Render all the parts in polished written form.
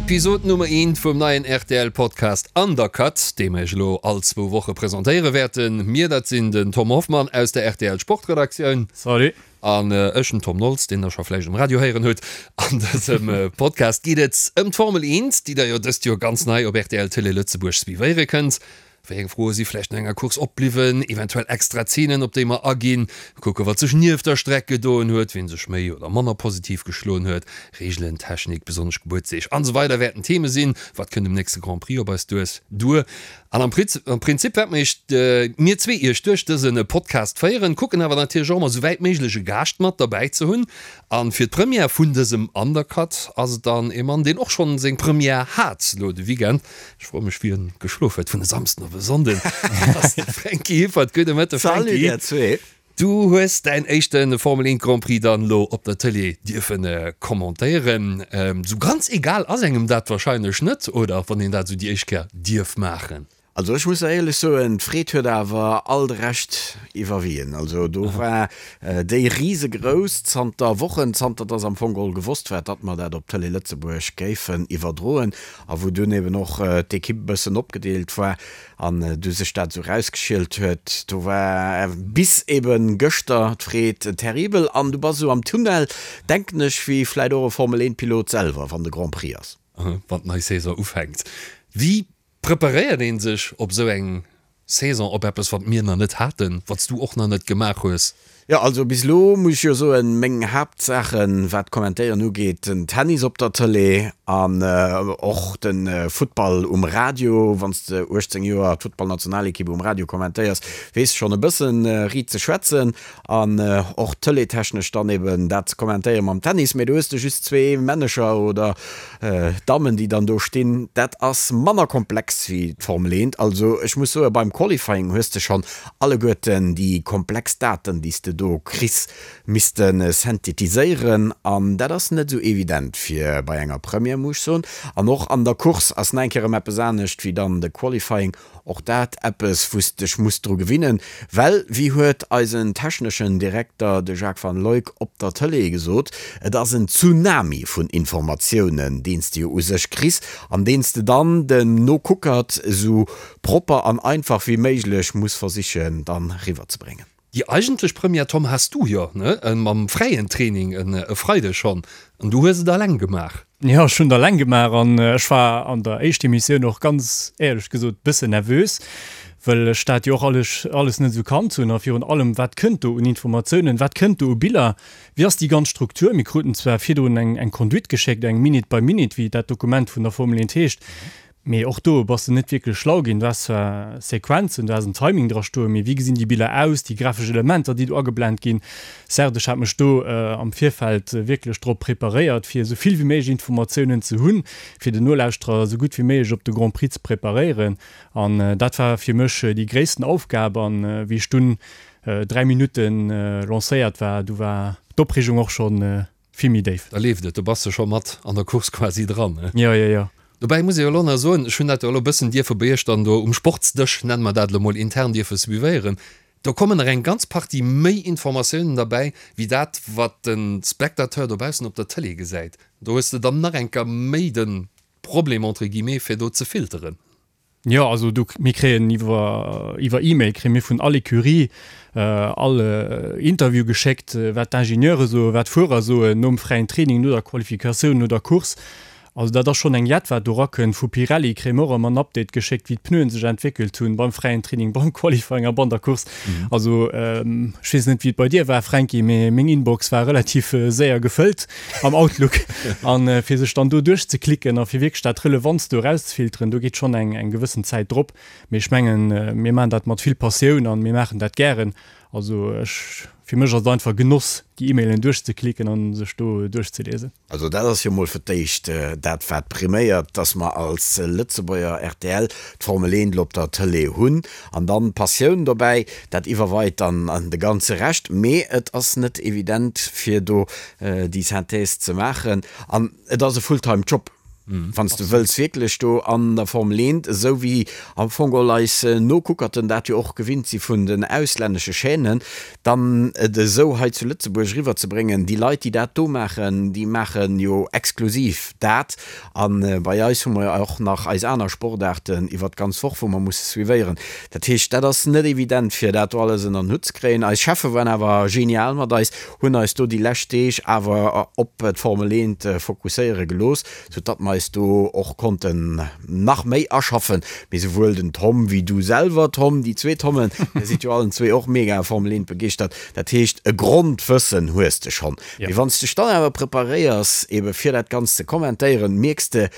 Episod Nummer eent vum neien rtl Podcast Undercut, dee mer iech elo all zwou Woche presentéiere wäerten. Mir, dat sinn den Tom Hoffmann aus der rtl Sportredaktioun. Salut. An ech, den Tom Nolz, deen der scho vläicht um Radio héieren hutt. An dësem Podcast geet et ëm d'Formel 1, déi der jo dëst Joer ganz nei op rtl Télé Lëtzebuerg suivéiere kënnt. Wéi eng Froe si vläicht no enger Course opbliwwen, eventuell extra Zeenen, op déi mer aginn, kucke wat sech nieft der Streck gedoen huet, wien sech méi oder manner positiv geschloen huet, Reegelen, Technik, besonnesch Gebuertsdeeg an esou weider wäerten Theme sinn. Wat kënnt um nächste Grand Prix op eis duer? An am Prinzip wäerte mer iech, mir zwee iech duerch dëse Podcast féieren, kucken awer natierlech och ëmmer esou wäit méiglech e Gaascht mat derbäi ze hunn. An fir d'Première vun dësem Undercut ass et dann ee Mann, deen och schonn seng Première hat lo de Weekend. Ech froe mech wien geschlof huet vun e Samsden op e Sonnden. Dat ass de Franky Hippert. Gudde Mëtte Franky. Salut dir zwee. Du hues däin éischte Formel 1 Grand Prix dann elo op der Tëlee dierfen commentéieren. Sou ganz egal ass engem dat wahrscheinlech net, oder? Wann een dat sou déi éischt Kéier dierf maachen. Also ech muss der éierlech soen, d'Freed huet awer all de Rescht iwwerwien. Also do war déi risegrouss zanter Wochen, zanter dass am Fong geholl gewosst war, datt mer dat op Tëlee Lëtzebuerg géifen iwwerdroen a wou dunn eben och d'Ekipp e bëssen opgedeelt war an du sech dat esou rausgeschielt huet, do war bis ebe gëschter d'Freed terribel an du bass esou am Tunnel, denken ech, wéi vläit och e Formel 1 Pilot selwer, wann de Grand Prix ass. Wann d'nei Saison ufänkt. Wéi Preparéiert een sech op esou eng Saison, op eppes wat mir nach net haten, wat s du och nach net gemaach hues? Jo, also bis elo muss ech jo soen, meng Haaptsaachen, wat d'Kommentéieren ugeet, den Tennis op der Tëlee an och de Futtball um Radio. Wann s de 18 Joer d'Futtballnationalekipp um Radio kommentéiers, weess de schonn e bëssen riit ze schwätzen. An och tëleetechnesch dann eben dat ze kommentéieren mam Tennis, mee do hues de just zwee Männecher oder Dammen, déi dann do stinn. Dat ass manner komplex wéi d'Formel 1. Also ech muss soen, beim Qualifying hues de schonn alleguerten déi komplex Daten, déi s de do kriss, misste synthetiséieren. An dat ass net esou evident fir bei enger Première, muss ech soen. An och an der Course ass nach eng Kéier erëm eppes anescht wéi dann de Qualifying. Och dat eppes, wou s dech muss dru gewinnen, well, wéi huet eisen techneschen Direkter, de Jacques van Luyck, op der Tëlee gesot, et ass en Tsunami vun Informatiounen, deen s de jo u sech kriss an deen s de dann dem Nokuckert esou propper an einfach wéi méiglech muss versichen dann riwwerzebréngen. Déi eigentlech Première, Tom, has du jo, ne, mam fräien Training e Freideg schonn, an du hues et alleng gemaach. Jo, ech hunn et alleng gemaach an ech war an der éischter Emissioun och ganz éierlech gesot bëssen nervös, wëll ech dat jo och alles alles net esou kannt hunn a virun allem, wat kënnt do un Informatiounen, wat kënnt do u Biller, wéi ass déi ganz Struktur? Mir kruten zwar virdrun eng eng Conduite geschéckt, eng Minute by Minute, wéi dat Dokument vun der Formel 1 heescht, Mee och do bass de net wierklech schlau ginn. Du has zwar Sequenzen, du has en Timing dra stoen, mee wéi gesinn déi Biller aus, déi grafesch Elementer, déi do ageblent ginn? Certes, ech hat mech do am Virfeld wierklech drop preparéiert, fir esou vill wéi méiglech Informatiounen ze hunn, fir den Nolauschterer esou gutt wéi méiglech op de Grand Prix ze preparéieren. An dat war fir mech déi gréissten Aufgab. An wéi ech dunn 3 Minutten lancéiert war, du war d'Opreegung och schonn vill méi déif. Da leeft et, do bass de scho mat an der Course quasi dran, ne? Jo, jo, jo. Dobäi muss ee jo elo nach soen, ech hunn dat jo elo e bëssen dierfe bei iech dann do um Sportsdësch, nenne mer dat elo mol, intern dierfe suivéieren, do kommen nach eng ganz Partie méi Informatiounen derbäi, wéi dat, wat de Spectateur dobaussen op der Tëlee gesäit. Do hues de dann nach eng Kéier méi de Problem, entre guillemets, fir do ze filteren. Jo, also do, mir kréien iwwer, iwwer E-Mail kréie mir vun all Ecurie all Interview geschéckt, wat d'Ingenieure soen, wat d'Fuerer soen nom fräien Training, no der Qualifikatioun, no der Course. Also dat ass schonn eng Jett, wat do erakënnt. Vu Pirelli kréie mir och ëmmer en Update geschéckt, wéi d'Pneuen sech entwéckelt hunn beim fräien Training, beim Qualifying a ban der Course. Also ech weess net, wéi et bei dir war, Fränki, mee meng Inbox war relativ séier gefëllt. am Outlook an fir sech dann do duerchzeklicken a fir wierklech dat Relevantst do erauszefilteren, do geet schonn eng eng gewëssen Zäit drop. Mee ech mengen, mir maachen dat mat vill Passioun an mir maachen dat gären. Also ech, fir mech ass et einfach Genoss, déi E-Mailen duerchzeklicken an sech do duerchzeliesen. Also dat ass jo mol fir d'éischt dat wat priméiert, dass mer als Lëtzebuerger rtl d'Formel 1 op der Tëlee hunn an dann d'Passioun dobäi, dat iwwerweit dann de ganze Rescht. Mee et ass net evident fir do déi Synthèse ze maachen an et ass e Fulltime Job. Wann s de wëlls wierklech do an der Formel 1, esou wéi am Fong geholl eis Nokuckerten dat jo och gewinnt si vun den auslännesche Chaînen, dann et esou hei zu Lëtzebuerg eriwwerzebréngen. Déi Leit, déi dat do maachen, déi maache jo exklusiv dat. A bei eis hu mer jo och nach eis aner Sportaarten iwwert d'ganz Woch, wou mer musse suivéieren. Dat heescht, dat ass net evident, fir dat do alles ënner den Hutt ze kréien. Eis Cheffe waren awer genial mat eis, hunn eis do déi lescht Deeg awer op d'Formel 1 fokusséiere gelooss, sou datt mer eis do och konnten nach méi aschaffen. Mee souwuel den Tom wéi du selwer, Tom, déi zwee Tommen, dir sidd jo allen zwee och mega Formel 1 begeeschtert, dat heescht e Grondwëssen hues de schonn. Mee wann s dech dann awer preparéiers ebe fir dat Ganzt ze kommentéieren, mierks de,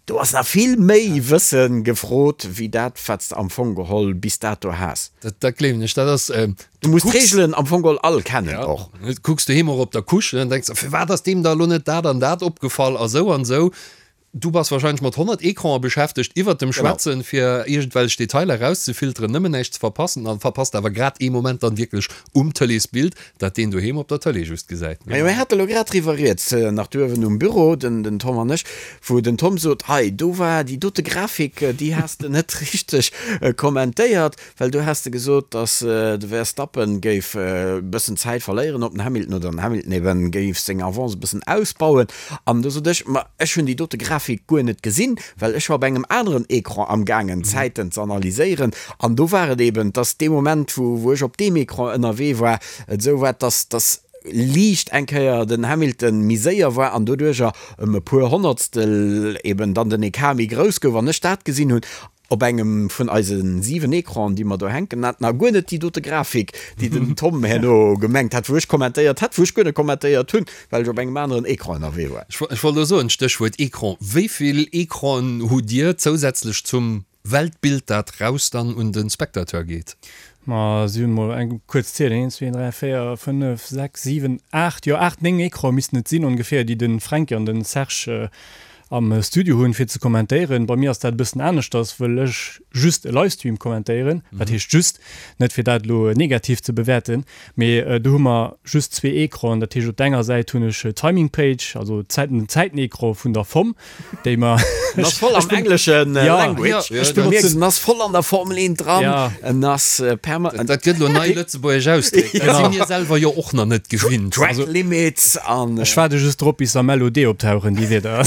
do ass nach vill méi Wësse gefrot wéi dat wat s de am Fong geholl bis dato has. Dat gleewen ech, dat ass. Du muss d'Reegelen am Fong geholl all kennen och. Ja, kucks doheem och op der Couche an denks, firwat ass deem da elo net dat an dat opgefall a sou an sou. Du bass wahrscheinlech mat 100 Ecranen beschäftegt iwwert dem Schwätzen, fir iergendwelch Detailer erauszefilteren, nëmmen näischt ze verpassen an verpasst awer grad ee Moment dann wierklech um Tëleesbild, dat deen doheem op der Tëlee just gesäit. Majo, mir hate lo grad driwwer rieds, nach duerwen um Büro, den den Tom an ech, wou den Tom sot, hei do war déi dote Grafik, déi has de net richteg kommentéiert. Well do has de gesot, datt de Verstappen géif e bëssen Zäit verléieren op den Hamilton oder den Hamilton eben géif seng Avance e bëssen ausbauen. An do sot ech, ma ech hunn déi dote Grafik guer net gesinn, well ech war op engem aneren Ecran amgaangen Zäiten ze analyséieren. An do war et eben, datt dee Moment, wou wou ech op deem Ecran ënnerwee war, et esou war, datt datt liicht eng Kéier den Hamilton méi séier war an doduercher ëm e puer Honnertstel eben dann den Ecart méi grouss gouf. An ech dat gesinn hunn. Op engem vun eise 7 Ecranen, déi mer do hänken haten, a guer net déi dote Grafik, déi den Tom herno gemengt hat, wou ech kommentéiert hätt, wou ech guer net kommentéiert hunn, well ech op engem aneren Ecran ënnerwee war. Ech wollt elo soen, Stéchwuert Ecran, wéi vill Ecranen hutt Dir zousätzlech zum Weltbild, dat raus dann un de Spectateur geet? Ma si hunn mol eng kuerz zielen, 1, 2, 3, 4, 5, 6, 7, 8, jo 8, 9 Ecrane missten et sinn ongeféier, déi de Fränki an de Serge am Studio hunn fir ze kommentéieren. Bei mir ass dat e bëssen aneschters, wëll ech just e Livestream kommentéieren. Wat heescht just? Net fir dat elo negativ ze bewäerten, mee do hu mer just zwee Ecranen. Dat heescht op der enger Säit hunn ech d'Timing Page, also d'Zäiten, den Zäitenecran vun der FOM, déi mer. En ass voll am engleschen Language. Ech benotzen. En ass voll an der Formel 1 dran. En ass permanent. Dat gëtt elo nei lëtzebuergesch Ausdréck. Dat si mir selwer jo och nach net gewinnt. Track Limits an. Ech waarde just drop, bis am LOD optauchen, déi Wierder.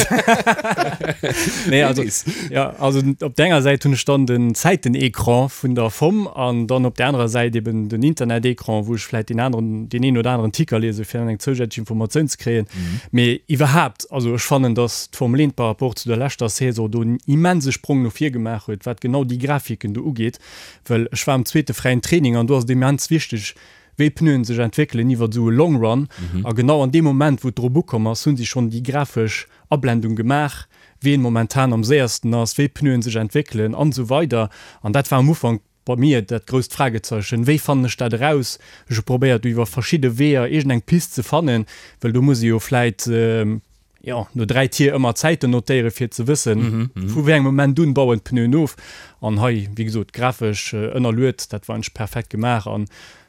Nee, also, ja, also op der enger Säit hunn ech dann den Zäitenecran vun der FOM an dann op der anerer Säit eben den Internetecran, wou ech vläit deen aneren, deen een oder aneren Ticker liese fir dann eng zousätzlech Informatioun ze kréien. Mee iwwerhaapt, also ech fannen, dass d'Formel 1 par rapport zu der leschter Saison do en immense Sprong no vir gemaach huet, wat genau déi Grafiken do ugeet. Well ech war am zweete fräien Training an do ass et immens wichteg, wéi d'Pneuen sech entwéckelen iwwert esou e Long Run. A genau an deem Moment, wou et drop ukomm ass, hu si schonn déi grafesch Ablendung gemaach, ween momentan am séiersten ass, wéi d'Pneuen sech entwéckelen an esou weider. An dat war am Ufank bei mir dat grousst Fragezeichen, Wéi fannen ech dat eraus? Ech hu probéiert, do iwwer verschidde Weeër iergendeng Pist ze fannen, well do muss ee jo vläit, jo, no 3 Tier ëmmer Zäiten notéieren, fir ze wëssen, vu wéi engem Moment un bauen d'Pneuen of. An hei, wéi gesot, grafesch ënnerluet, dat war eigentlech perfekt gemaach. A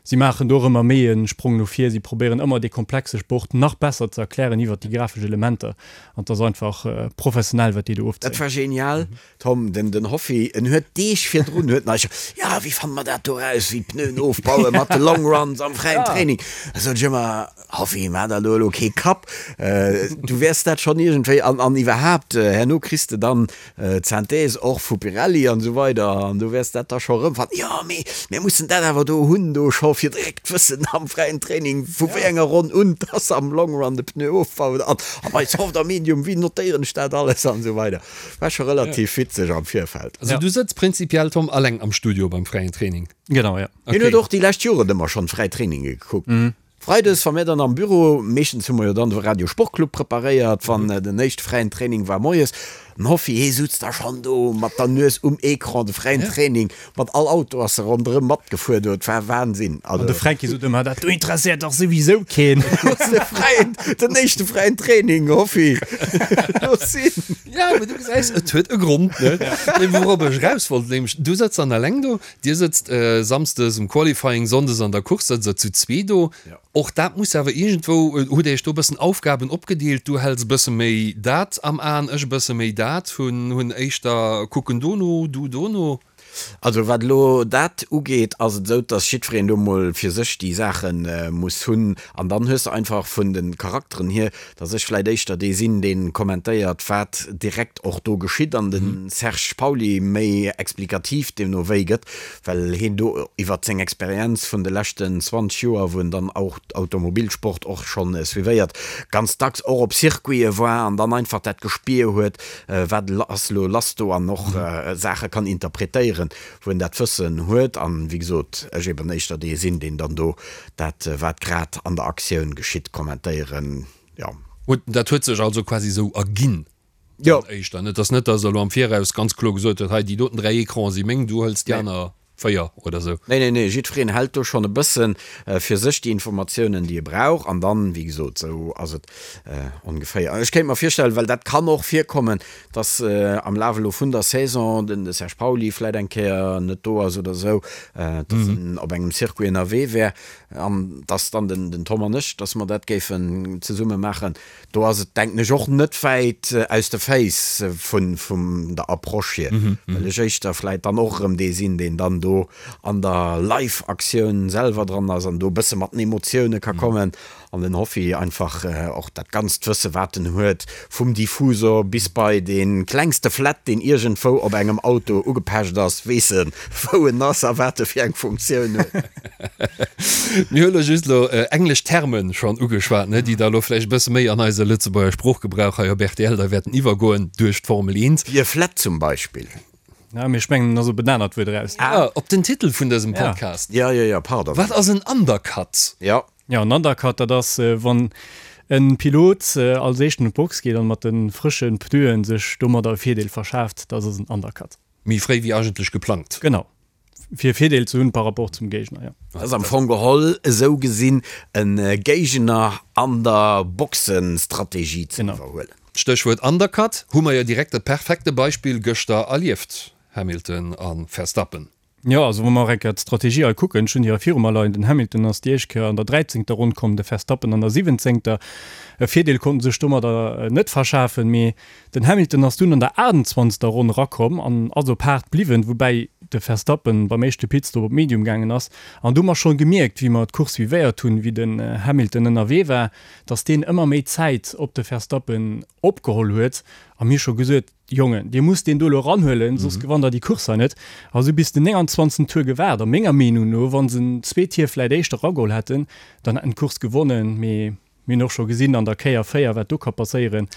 si maachen do och ëmmer méi e Sprong no vir. Si probéieren ëmmer, dee komplexe Sport nach besser ze erklären iwwert déi grafesch Elementer. An et ass einfach professionell, wat déi do ofzéien. Dat war genial, Tom, den den Hoffi, en huet Deeg virdrun huet en eis scho, jo, wéi fanne mer dat do raus, wéi d'Pneuen ofbauen mat de Long Runs am fräien Training. Da sot ech ëmmer, Hoffi, maach der do elo kee Kapp, du wäers dat schonn iergendwéi an an iwwerhaapt, herno kriss de dann d'Synthèse och vu Pirelli an esou weider an du wäers dat da scho erëmfannen. Jo, mee mir mussen dat awer do hunn, do scho fir direkt wëssen am fräien Training, vu wéi enger Ronn un dass am Long Run de Pneu ofbaut an a bei Soft a Medium, wéi notéieren ech dat alles an esou weider. War scho relativ witzeg am Virfeld. Also du sëtz prinzipiell, Tom, alleng am Studio beim fräien Training? Genau, ja. Hien huet och déi lescht Joren ëmmer schonn fräi Traininge gekuckt. Freides, wa mir dann am Büro, meeschtens hu mer jo dann de Radio Sportclub preparéiert, wann den éischte fräien Training war moies. Den Hoffi, hee sutz da schonn do mat der Nues um Ecran, de fräien Training, mat all Auto ass e ronderëm matgefuer do, et war Wahnsinn. An de Fränki sot ëmmer, dat do interesséiert dach souwisou keen. De fräien, den éischte fräien Training, Hoffi, looss sinn. Ja, mee du gesäis, et huet e Grond, ne? Nee, wourop ech eraus wollt, nämlech, du sëtz dann eleng do, dir sëtzt samsdes um Qualifying, sonndes an der Course sëtzt der zu zwee do. Och dat muss awer iergendwou, hutt Dir Iech do e bëssen Aufgaben opgedeelt, du häls e bësse méi dat am Aen, ech e bësse méi dat, hunn hunn éischter kucken dono, du dono? Also wat elo dat ugeet, ass et esou, dass jiddwereen do mol fir sech déi Saache muss hunn. An dann hues de einfach vun de Charakteren hier, dass ech vläicht éischter dee sinn, dee kommentéiert, wat direkt och do geschitt, an de Serge Pauly méi explikativ deemno wéi gëtt, well hien do iwwert seng Experienz vun de leschten 20 Joer, wou en dann och Automobilsport och schonn suivéiert, ganz dacks och op Circuite war an dann einfach dat Gespier huet, wat ass elo lass do an och Saache kann interpretéieren, wou en dat Wëssen huet. An, wéi gesot, ech eben éischter dee sinn, deen dann do dat, wat grad an der Aktioun geschitt, kommentéieren, jo. Dat huet sech also quasi esou erginn dann éischter? Et ass net, datt Der elo am Viraus ganz kloer gesot hutt, hei déi doten 3 Ecrane si meng, du hëls déi aner 4 oder esou? Nee, nee, nee, jiddwereen hält do schonn e bësse fir sech déi Informatiounen, déi e brauch. An dann, wéi gesot, esou ass et ongeféier. Ech kéint mer virstellen, well dat kann och virkommen, dass am Laf elo vun der Saison den de Serge Pauly vläit eng Kéier net do ass oder esou, dass en op engem Circuit ënnerwee wär an dass dann den Tom an ech, dass mer dat géifen zesumme maachen. Do ass et, denken ech, och net wäit aus de Féiss vun der Approche hier, well ech éischter vläit dann och erëm dee sinn, deen dann do an der Live-Aktioun selwer dran ass an do e bësse mat den Emotioune ka kommen An den Hoffi einfach och dat ganzt Wësse wat en huet, vum Diffusor bis bei dee klengste Flett deen iergendwou op engem Auto ugepecht ass, weess en wou en ass a wat e fir eng Funktioun huet. Mir hu lo just elo englesch Termen schonn ugeschwat, ne, déi da lo vläicht e bësse méi an eise Lëtzebuerger Sproochgebrauch hei op rtl da wäerten iwwergoen duerch d'Formel 1. Wéi e Flett zum Beispill. Ja, mee ech mengen, et ass op en anert Wuert eraus. Ah, op den Titel vun dësem Podcast. Ja, jo, jo, pardon. Wat ass en Undercut? Jo. Jo, en Undercut, dat ass, wann e Pilot als éischten un d'Box geet an mat de frësche Pneuen sech domadder e Virdeel verschaaft. Dat ass en Undercut. Méi fréi wéi eigentlech geplangt. Genau, fir e Virdeel ze hunn par rapport zum Géigner, jo. Dat ass am Fong geholl esou gesinn e Géigner an der Boxenstrategie ze iwwerhuelen. Stéchwuert Undercut, hu mer jo direkt e perfekte Beispill gëschter erlieft, Hamilton a Verstappen. Jo, also wa mer och eng Kéier d'Strategie hei kucken, ech hunn déi hei viru mer leien, den Hamilton ass déi éischt Kéier an der dräizéngter Ronn komm, de Verstappen an der siwwenzéngter. E Virdeel konnt en sech domadder net verschafen, mee den Hamilton ass dunn an der achtenzwanzegster Ronn erakomm an ass op haart bliwwen, woubäi de Verstappen beim éischte Pitstop op Medium gaangen ass. An do hu mer schonn gemierkt, wéi mer d'Course suivéiert hunn, wéi den Hamilton ënnerwee war, datt deen ëmmer méi Zäit op de Verstappen opgeholl huet a mir scho gesot, Jongen, dir musst deen do elo eranhuelen, soss gewannt der déi Course hei net. A se hu bis den 29. Tour gewaart. A menger Meenung no, wa se en zwee Tier vläit éischter erageholl hätten, dann hätten d'Course gewonnen. Mee mir hunn och scho gesinn an der Kéier 4, wat do ka passéieren.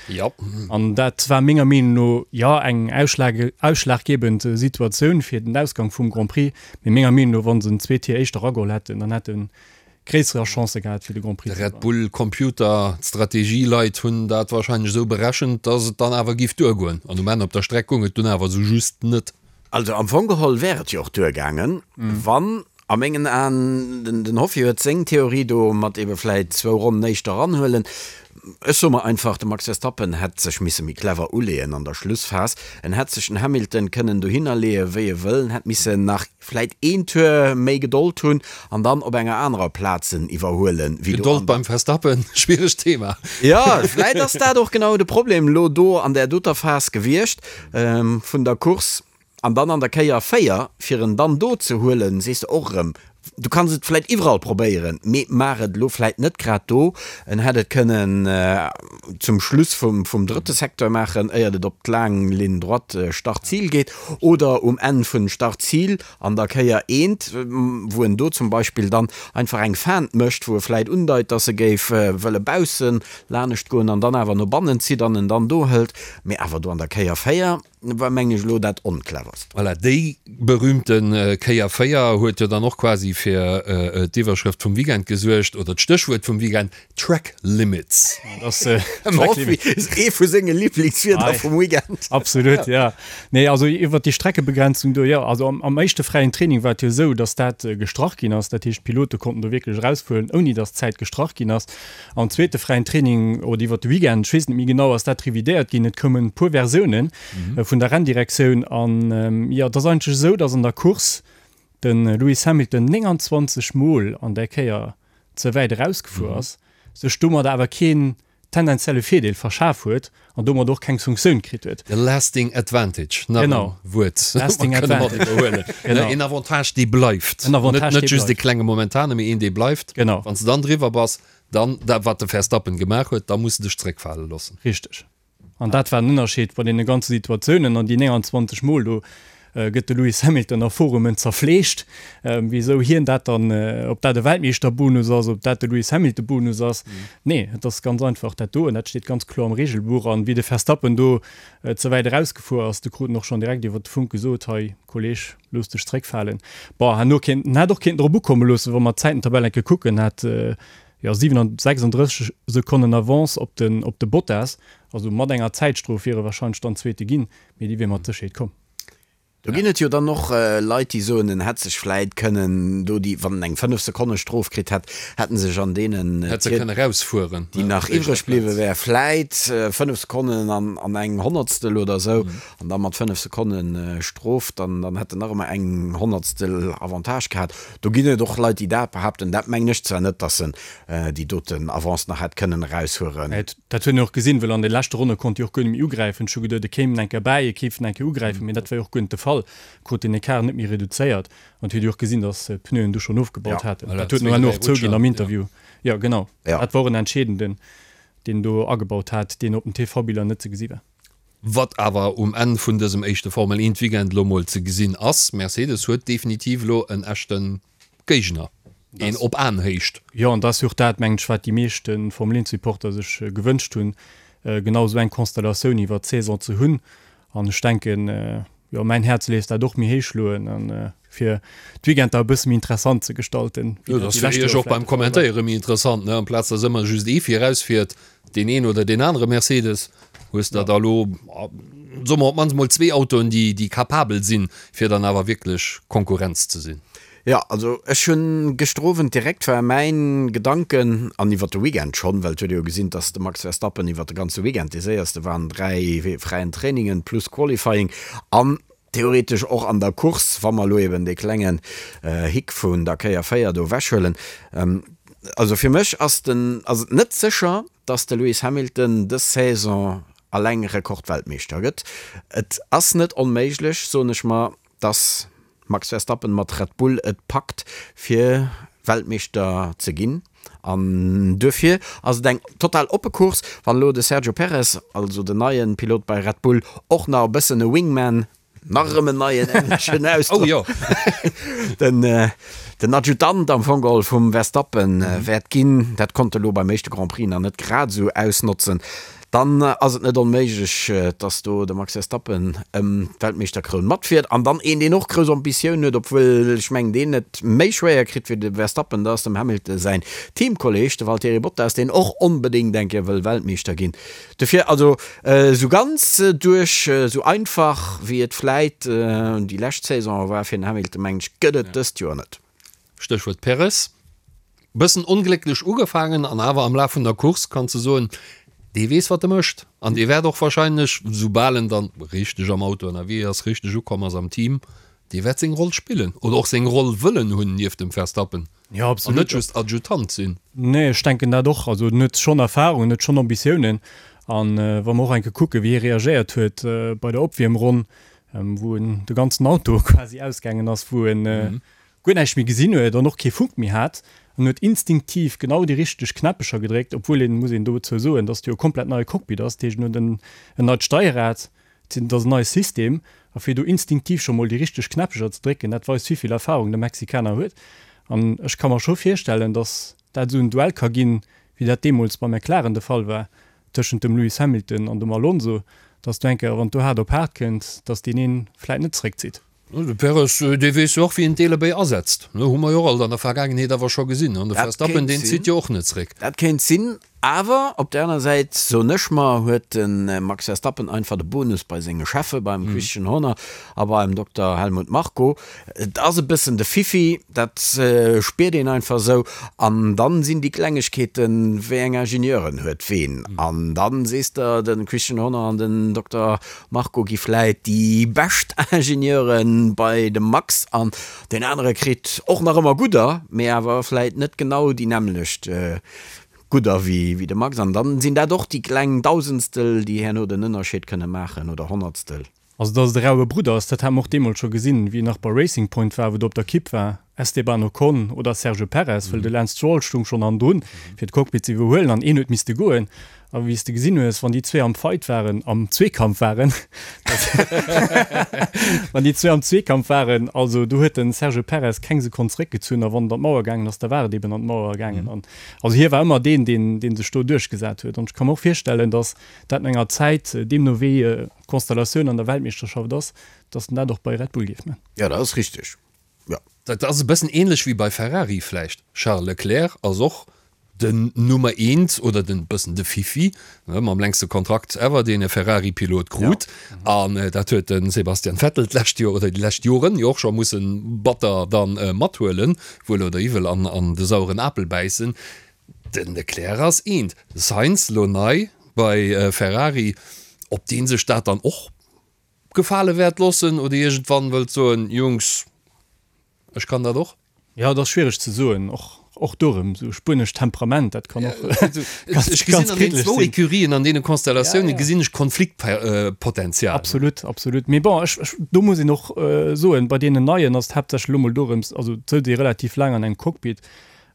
An dat war menger Meenung no, jo, eng ausschlaggebend Situatioun fir den Ausgang vum Grand Prix. Mee menger Meenung no, wa se en zwee Tier éischter erageholl hätten, dann hätte gréisserer Chancë gehat fir de Grand Prix ze gewannen. Red Bull Computer, d'Strategieleit hunn dat wahrscheinlech esou berechent, dass et dann awer giff duergoen. An um Enn op der Streck goung et dunn awer esou just net. Also am Fong geholl wär et jo och duergaangen, wann a mengen Aen, den Hoffi huet seng Theorie do mat ebe vläit zwou Ronnen éischter eranhuelen, ech soe mer einfach, de Max Verstappen hätt sech misse méi clever uleeën an der Schlussphas. En hätt sech den Hamilton kënnen dohinner leeë wéi e wëll, en hätt missen nach Vläit een Tour méi Gedold hunn an dann op enger anerer Plaz en iwwerhuelen wéi do Gedold beim Verstappen, schwieregt Thema. Jo, vläit ass dat och genau de Problem elo do an där doter Phas gewiescht vun der Course. An dann an der Kéier 4, fir en dann do ze huelen, sees de och erëm, du kanns et vläit iwwerall probéieren, mee maach et elo vläit net grad do. En hätt et kënnen zum Schluss vum drëtte Secteur maachen, éiert et op d'laang Ligne droite Start-Zil geet, oder um Enn vun Start-Zil an der Kéier eent, wou en do zum Beispill dann einfach eng Feinte mécht, wou e vläit undeit, dass e géif wëlle bausse lanescht goen an dann awer no bannen zitt an en dann do hëlt, mee awer do an der Kéier 4. War mengen ech elo dat oncleverst. Voilà, déi. berühmte Kéier 4 huet jo dann och quasi fir d'Iwwerschrëft vum Weekend gesuergt, oder d'Stéchwuert vum Weekend, Track Limits. Ass ee vu senge Liblingswierder vum Weekend. Absolut, jo. Nee, also iwwert déi Streckebegrenzung do, jo, also am éischte fräien Training war et jo esou, datt dat gestrach ginn ass. Dat heescht, d'Pilote konnten do wierklech erausfueren, ouni datt d'Zäit gestrach ginn ass. Am zweete fräien Training oder iwwert de Weekend, ech weess net méi genau, ass dat revidéiert ginn. Et koumen e puer Versioune vun der Renndirektioun an, jo, et ass eigentlech esou, datt an der Course de Lewis Hamilton 29 Mol an där Kéier ze wäit erausgefuer ass, sech domadder awer keen tendenzielle Virdeel verschaf huet an domat och keng Sanktioun kritt huet. De lasting advantage, nach e Wuert, wat mer kënne mat iwwerhuelen. Een Avantage, dee bleift. En Avantage, dee bleift. Net just e klenge momentane, mee een, dee bleift. Genau. Wann s de dann driwwer bass, dann, dat wat de Verstappen gemaach huet, da muss de dech zréckfale loossen. Richteg. An dat war den Ënnerscheed bei deene ganze Situatiounen. An déi 29 Mol do gëtt de Lewis Hamilton a Forumen zerfleegt, wisou hien dat dann, ob dat e Weltmeeschterbonus ass, ob dat de Lewis Hamilton-Bonus ass. Nee, et ass ganz einfach dat do, an dat steet ganz kloer am Regelbuch. An wéi de Verstappen do ze wäit erausgefuer ass, du krut en och schonn direkt iwwer de Funk gesot, Hei Kolleg, looss dech zréckfalen. Bon, herno kéint, en hätt och kéinten drop ukomme loossen, wa mer d'Zäitentabell eng Kéier kucken, hat jo 36 Sekonnen Avance op den, op de Bottas, also mat enger Zäitstrof wier e warscheinlech dann Zweete ginn, mee déi wier mat Sécherheet komm. Do ginn et jo dann och Leit, déi soen, en hätt sech vläit kënnen do déi, wann en eng 5 Sekonne Strof kritt hätt, hätt en sech an deenen, Hätt se kënne rausfueren, déi nach iwwreg bliwwe wär, vläit 5 Sekonnen an an eng Honnertstel oder esou, an da mat 5 Sekonne Strof, dann dann hätt en nach ëmmer eng Honnertstel Avantage gehat. Do ginn et och Leit, déi dat behaapten. Dat mengen ech zwar net, datt en déi doten Avance nach hätt kënnen eraushueren. Dat huet een och gesinn, well an de leschte Ronne konnt déi och guer net méi ugräifen. Ech hu geduet, e kéim enke bäi, e kéif enke ugräifen, mee dat war jo och guer net de Fall. Krut den Ecart net méi reduzéiert an et huet ee och gesinn, datt d'Pneuen du schonn ofgebaut haten. Dat huet en herno och zouginn am Interview. Jo, genau, dat war och en entscheedenden, deen do agebaut hat, deen op den TV-Biller net ze gesi war. Wat awer um Enn vun dësem éischte Formel-Eent-Weekend elo mol ze gesinn ass, Mercedes huet definitiv elo en echte Géigner, een op Aenhéicht. Jo, an dat ass jo och dat, mengen ech, wat déi meeschte Formel 1 Supporter sech gewënscht hunn, genau esou eng Konstellatioun iwwert d'Saison ze hunn. An ech denken, jo, mäin Häerz léisst dat och méi héich schloen, a fir d'Weekender e bësse méi interessant ze gestalten, wéi dat déi lescht Joer vläicht de Fall war. Jo, dat ass fir iech och beim Kommentéiere méi interessant, ne, amplaz dass ëmmer just ee virausfiert, deen een oder deen anere Mercedes, hues der da elo, soe mer, op d'mannst mol zwee Autoen, déi, déi capabel sinn, fir dann awer wierklech Konkurrenz ze sinn. Jo, also ech hunn gëschter Owend direkt war mäin Gedanken, an iwwer de Weekend schonn, well et huet ee jo gesinn, dass de Max Verstappen iwwer de ganze Weekend dee séierste war an 3 fräien Trainingen plus Qualifying an theoretesch och an der Course, wa mer elo eben dee klengen Hick vun der Kéier 4 do ewechhuelen. Also fir mech ass den, ass et net sécher, dass de Lewis Hamilton dës Saison alleng Rekordweltmeeschter gëtt. Et ass net onméiglech, soen ech mer, dass Max Verstappen mat Red Bull et packt fir Weltmeeschter ze ginn an duerfir ass et eng total oppe Course. Wann elo de Sergio Perez, also den neien Pilot bei Red Bull, och nach e bëssen e Wingman, nach erëm en neien engleschen Ausdrock, den den Adjutant am Fong geholl vum Verstappen wäert ginn, dat konnt e lo beim éischte Grand Prix nach net grad esou ausnotzen, Dann ass et net onméiglech, dass do de Max Verstappen ëm d'Weltmeeschterkroun matfiert. An dann een, deen och grouss Ambitioun huet, obwuel ech mengen, deen et méi schwéier kritt wéi de Verstappen, dat ass dem Hamilton säin Teamkolleeg, de Valtteri Bottas, deen och onbedéngt eng Kéier wëll Weltmeeschter ginn. Dofir also esou ganz duerch, esou einfach wéi et vläit déi lescht Saison war fir den Hamilton, mengen ech, gëtt et dëst Joer net. Stéchwuert Perez. Bëssen onglécklech ugefaangen an awer am Laf vun der Course kanns de soen, dee weess wat e mécht an dee wäert och wahrscheinlech, soubal en dann richteg am Auto ënnerwee ass, richteg ukomm ass am Team, dee wäert seng Roll spillen oder och seng Roll wëllen hunn nieft dem Verstappen Jo, an net just Adjutant sinn. Nee, ech denken dat och. Also en huet schonn Erfahrung, en huet schonn Ambitiounen an wa mer och eng Kéier kucken, wéi hie reagéiert huet bei der Opwiermronn, wou en de ganzen Auto quasi ausgaangen ass, wou en guer näischt méi gesinn huet an och kee Funk méi hat an huet instinktiv genau déi richteg Knäppecher gedréckt, obwuel een, muss een dozou soen, dass et jo e komplett neie Cockpit ass, dat heescht en huet en en neit Steierrad, et ass en neie System a fir do instinktiv scho mol déi richteg Knäppecher ze drécken, dat weist wéivill Erfahrung de Mexikaner huet an ech ka mer scho virstellen, dass dat esou en Duell ka ginn, wéi dat deemools bei McLaren de Fall war tëschent dem Lewis Hamilton an dem Alonso, dass do eng Kéier, wann et do haart op haart kënnt, dass deen een vläit net zeréckzitt. De Perez, dee weess jo och, wéi een d'Eelebéi asetzt. Hu mer jo och alt an der Vergaangenheet awer scho gesinn. An de Verstappen, deen zitt jo och net zréck. Dat kéint sinn. Awer op där aner Säit, soen ech mer, huet de Max Verstappen einfach de Bonus bei senge Cheffe, beim Christian Horner a beim Dokter Helmut Marko. Et ass e bëssen de Fiffi, dat spiert een einfach esou. An dann sinn déi Klengegkeeten, wéi eng Ingenieuren huet ween. An dann sees de, de Christian Horner an den Dokter Marko gi vläit déi bescht Ingenieure bei dem Max an deen anere kritt och nach ëmmer gudder, mee awer vläit net genau déi nämmlecht Gudder wéi de Max. An dann sinn dat och déi kleng Dausendstel, déi herno den Ënnerscheed kënne maachen, oder Honnertstel. Also dass et e raue Brudder ass, dat hate mer och deemools scho gesinn, wéi en nach bei Racing Point war, wou do op der Kipp war, Esteban Ocon oder Sergio Perez, well de Lance Stroll stung schonn hannendrun, fir d'Cockpit ze iwwerhuelen an een huet misste goen. A wéi s de gesinn hues, wann déi zwee am Fight waren, am Zweekampf waren, wann déi zwee am Zweekampf waren, also do huet de Sergio Perez keng Sekonn zeréckgezunn a wann et an d'Mauer gaangen ass, da war et eben an d'Mauer gaangen. An also hie war ëmmer deen, deen, dee sech do duerchgesat huet. An ech ka mer och virstellen, datt dat no enger Zäit, deemno wéi d'Konstellatioun an der Weltmeeschterschaft ass, datt en dat och bei Red Bull géif man. Jo, dat ass richteg, jo. Dat ass e bëssen ähnlech wéi bei Ferrari vläicht. Charles Leclerc ass och den Nummer eent oder den bëssen de Fifi, ne, mam längste Kontrakt ever, deen e Ferrari-Pilot krut. An dat huet de Sebastian Vettel d'lescht Joer oder déi lescht Joren jo och scho mussen batter dann mathuelen, wuel oder iwwel, an an de saueren Apel bäissen. Den Leclerc ass eent. Sainz lo nei bei Ferrari, ob dee sech dat dann och gefale wäert loossen oder iergendwann wëllt soen, Jungs, ech kann dat och. Jo, et ass schwiereg ze soen, och och do erëm esou spuenescht Temperament, dat kann och ganz, Ech gesinn ganz an deenen zwou Ecurien, an deene Konstellatiounen gesinn ech Konfliktpotenzial. Absolut, absolut. Mee bon, ech, ech, do muss een och soen, bei deenen Neien ass et haaptsächlech elo mol dorëms, also et souz ee relativ laang an engem Cockpit,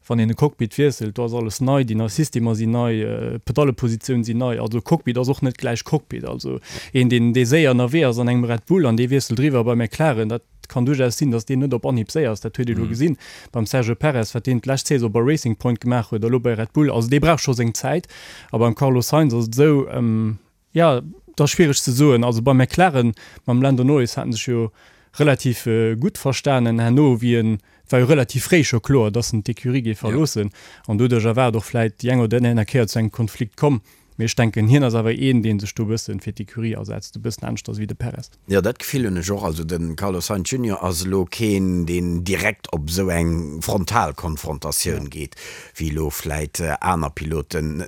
Wann een e Cockpit wiesselt, do ass alles nei, déi nei Systemer sinn nei, d'Pedallepositioun sinn nei. Also Cockpit ass och net gläich Cockpit. Also een, deen, dee séier ënnerwee ass an engem Red Bull an dee wiesselt eriwwer bei McLaren, dat kann duerchaus sinn, datt deen net op Anhieb séier ass. Dat huet ee lo gesinn beim Sergio Perez, wat deen d'lescht Saison bei Racing Point gemaach huet a lo bei Red Bull. Also dee brauch scho seng Zäit. A beim Carlos Sainz ass et esou, Jo, et ass schwiereg ze soen. Also bei McLaren mam Lando Norris haten sech jo relativ gutt verstanen. Herno wéi en, et war jo relativ fréi scho kloer, datt en d'Ecurie géif verloossen an doduercher war et och vläit déi eng oder déi aner Kéier zu engem Konflikt komm. Mee ech denken, hien ass awer een, dee sech do e bësse fir d'Ecurie asetzt, e bëssen aneschters wéi de Perez. Jo, dat Gefill hunn ech och. Also de Carlos Sainz Junior ass elo keen, deen direkt op esou eng frontal Konfrontatioun geet, wéi elo vläit aner Piloten.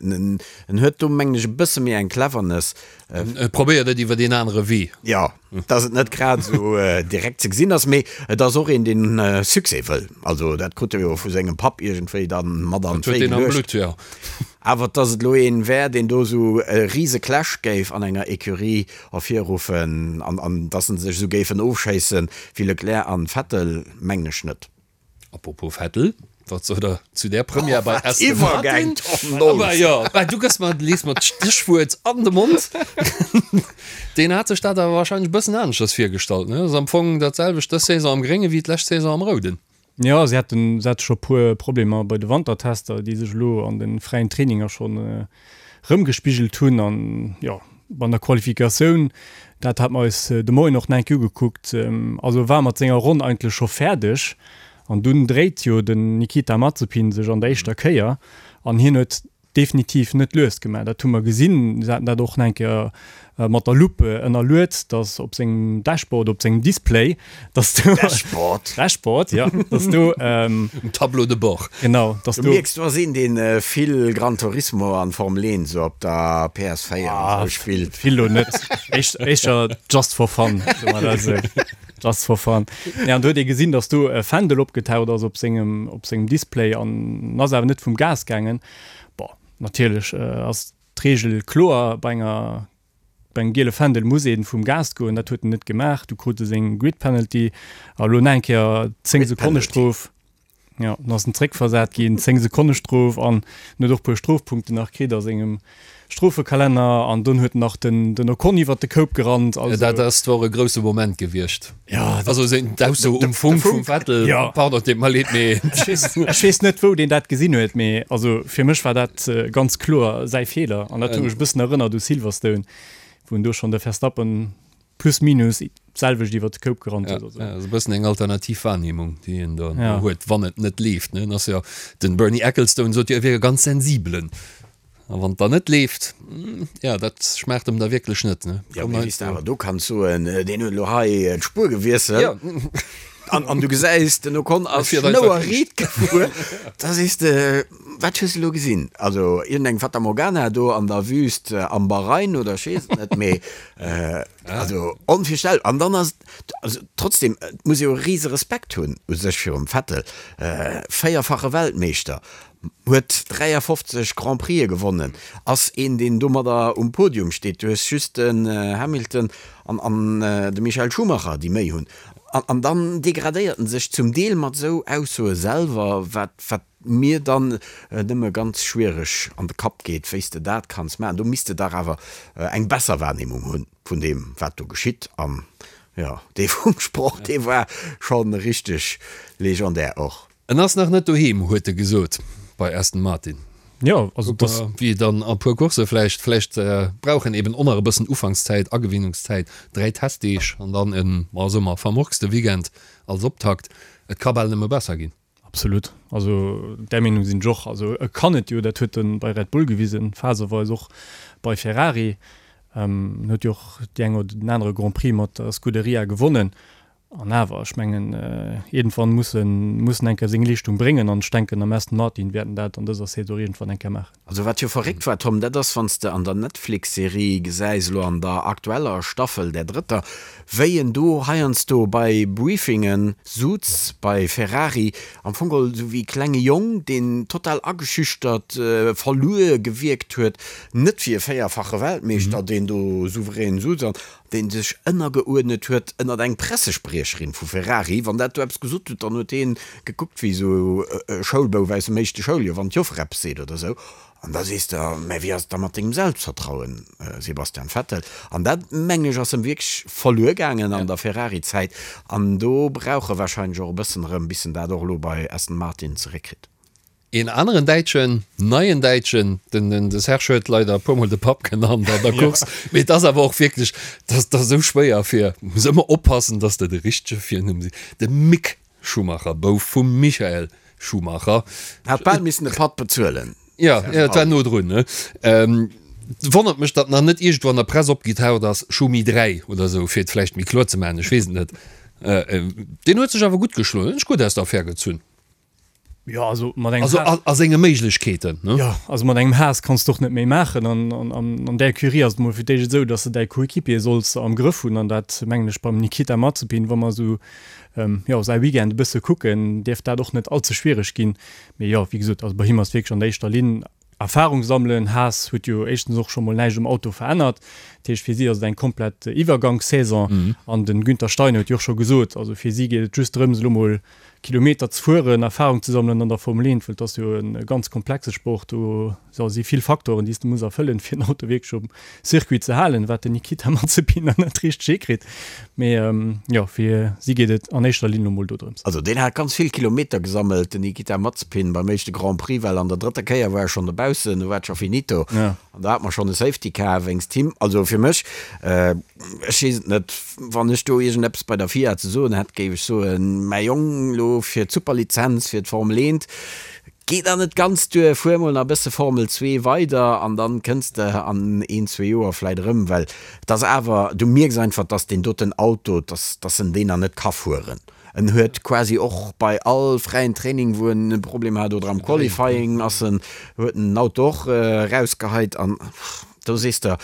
En huet do mengen ech e bësse méi eng Cleverness. E probéiert et iwwer een anere Wee. Jo, dass et net grad esou direkt ze gesinn ass, mee et ass och een, deen Succès wëll. Also dat krut e jo vu sengem Papp iergendwéi dann mat an d'Wéi geluecht. Jo. Awer dass et elo een wär, deen do esou e rise Clash géif an enger Ecurie ervirruffen an an dass se sech esou géifen ofschéissen wéi Leclerc an Vettel, mengen ech net. Apropos Vettel, wat sot der zu där Première bei Aston Martin? Aber jo, bah, du gëss mer, lees mer d'Stéchwuert an de Mond. Deen hat sech dat awer wahrscheinlech e bëssen aneschters virgestallt, ne? Ass am Fong dat selwecht dës Saison am Grénge wéi d'lescht Saison am Rouden. Jo, si haten, si hate scho puer Problemer bei de Wantertester, déi sech elo an de fräien Traininger schonn erëmgespigelt hunn. An jo, an der Qualifikatioun, dat hat mer eis de Moien och nach eng Kéier ugekuckt, also war mat senger Ronn eigentlech scho fäerdeg an dunn dréit jo den Nikita Mazepin sech an der éischter Kéier an hien huet definitiv net lues gemaach. Dat hu mer gesinn, se haten dat och nach eng Kéier mat der Lupe ënnerluet, dass op sengem Dashboard, op sengem Display, dass do Dashboard? Dashboard, ja, dass do Um Tableau de bord. Genau, dass do. Du mierks, du ass een, deen vill Gran Turismo an Formel 1 esou op der PS4 an esou spillt. Vill lo net, éischter just for fun, soe mer dat esou. Just for fun. Nee, an do huet ee gesinn, dass do e Fändel opgetaucht ass op sengem, op sengem Display an ass awer net vum Gas gaangen. Bon, natierlech ass d'Reegel kloer, bei enger Bei engem giele Fändel muss ee vum Gas goen, dat huet en net gemaach. Du krut e seng Grid Penalty a lo nach eng Kéier 10 Sekonne Strof. Jo, dann ass en zréckversat ginn, 10 Sekonne Strof an en huet och e puer Strofpunkten nach kritt a sengem Strofekalenner an dunn huet en nach den den Ocon iwwert de Koup gerannt. Also dat ass zwar e grousse Moment gewiescht. Ja, also seng d'Ausso um Funk vum Vettel, ja. Pardon, deet mer leed, mee ech weess net wou deen dat gesinn huet, mee also fir mech war dat ganz kloer säi Feeler an dat huet mech e bëssen erënnert u Silverstone, wou en do schonn de Verstappen plus minus. D'selwecht iwwert de Koup gerannt huet. Ja, ass e bëssen eng alternativ Wahrnehmung, déi een do huet, wann et net leeft. Ne? Ass jo, den Bernie Ecclestone sot jo, e wier e ganz sensibelen. A wann et dann net leeft, ja, dat schmaacht em da wierklech net. Ne? Ja, mee wéi s de awer do kanns soen, deen huet elo hei d'Spuer gewiesselt. Ja. An, an du gesäis, den Ocon ass schnouerriit gefuer. Da sees de, wat hues de elo gesinn? Also iergendeng Fata Morgana do an der Wüst am Bahrain oder ech weess et net, mee Also onvirstellbar. An dann ass et, also trotzdem, et muss ee jo e rise Respekt hunn u sech virum Vettel, véierfache Weltmeeschter, huet 53 Grand Prixë gewonnen, ass een deen domadder um Podium steet. Du hues just den Hamilton an an de Michael Schumacher déi méi hunn. An an dann degradéiert en sech zum Deel mat esou Aussoe selwer, wat wat mir dann nëmme ganz schwiereg an de Kapp geet, wéi s de dat kanns maachen. Do misst de dach awer eng besser Wahrnehmung hunn vun deem, wat do geschitt. An jo, dee Funksproch, dee war scho richteg legendär och. En ass nach net doheem, huet e gesot bei Aston Martin. Jo, also dass. Wéi dann a puer Coursse vläicht. Vläicht brauch en eben och nach e bëssen Ufankszäit, Agewinnungszäit, 3 Testdeeg an dann en, ma soe mer, vermurkste Weekend als Optakt. Et ka bal nëmme besser ginn. Absolut. Also där Meenung sinn ech och. Also e kann et jo, dat huet e bei Red Bull gewisen, phaseweis och bei Ferrari. En huet jo och déi eng oder den anere Grand Prix mat der Scuderia gewonnen. An awer, ech mengen, iergendwann muss en, muss en eng Kéier seng Leeschtung bréngen. An ech denken, am Aston Martin wäert en dat an dëser Saison iergendwann eng Kéier maachen. Also wat jo verréckt war, Tom, dat ass wann s de an der Netflix-Serie gesäis, elo an der aktueller Staffel, där drëtter, wéi en do heiansdo bei Briefinge sutz bei Ferrari, am Fong geholl esou wéi e klenge Jong, deen total ageschüchtert, verluer gewierkt huet, net wéi e véierfache Weltmeeschter, deen do souverän sutz an deen sech ënnergeuerdnet huet ënnert eng Pressespriecherin vu Ferrari. Wann dat do eppes gesot huet, dann huet dee gekuckt wéi esou e Schoulbouf aus dem éischte Schouljoer, wann d'Joffer eppes seet oder esou. An da sees de, mä wéi ass et da mat dengem Selbstvertrauen, Sebastian Vettel? An dat, mengen ech, ass em wierklech verluer gaangen an der Ferrari-Zäit. An do brauch e warscheinlech och e bëssen erëm, bis en dat och elo bei Aston Martin zeréckkritt. Een aneren Däitschen, neien Däitschen, den de Serge huet leider e puermol de Papp genannt an der Course, mee et ass awer och wierklech, dat ass esou schwéier fir, muss ëmmer oppassen, dass de de richtege Virnumm sees, de Mick Schumacher, Bouf vum Michael Schumacher. Hat bal missen de Patt bezuelen. Jo, jo, et war no drun, ne? Wonnert mech, datt nach net iergendwou an der Press opgetaucht ass, Schumi 3 oder esou, fir et vläicht méi kloer ze maachen, ech weess et net. Deen huet sech awer gutt geschloen, huet sech gutt aus der Affär gezunn. Ja, also mat engem Also a, a senge Méiglechkeeten, ne? Ja, also mat engem Haas kanns de och net méi maachen. An, an, an, an där Ecurie ass et mol fir d'éischt esou, dass de däi Coéquipier solls am Grëff hunn. An dat mengen ech beim Nikita Mazepin, wa mer esou, ähm, jo, säi Weekend e bësse kucken, dierft dat och net allze schwiereg ginn. Mee jo, wéi gesot, also bei him ass wierklech an der éischter Linn Erfahrung sammelen. Haas huet jo éischtens och scho mol näischt um Auto verännert. Dat heescht, fir si ass et eng komplett Iwwergangssaison. An de Günther Steiner huet jo och scho gesot, also fir si geet et just drëms, elo mol Kilometer ze fueren, Erfahrung ze sammelen an der Formel 1, well et ass jo e ganz komplexe Sport. Do si vill Faktoren, déi s de muss erfëllen, fir den Auto wierklech um Circuit ze halen, wat den Nikita Mazepin nach net richteg hikritt. Mee jo, fir si geet et an éischter Linn elo mol dodrëms. Also deen hat ganz vill Kilometer gesammelt, den Nikita Mazepin beim éischte Grand Prix, well an der drëtter Kéier war e schonn dobaussen, do war et scho finito an do hat mer schonn e Safety Car wéinst him. Also fir mech, ech weess et net, wann ech do iergendeppes bei der FIA ze soen hätt, géif ech soen, mäi Jong, elo fir d'Superlizenz fir d'Formel 1, Geet nach net ganz duer, fuer mol nach e bësse Formel 2 weider an dann kënns de an een, zwee Joer vläit erëm, well et ass awer, du mierks einfach, dass deen doten Auto, dass, dass en deen nach net ka fueren. En huet quasi och bei all fräien Training, wou en e Problem hat oder am Qualifying ass en, huet en den Auto och erausgeheit an do sees de,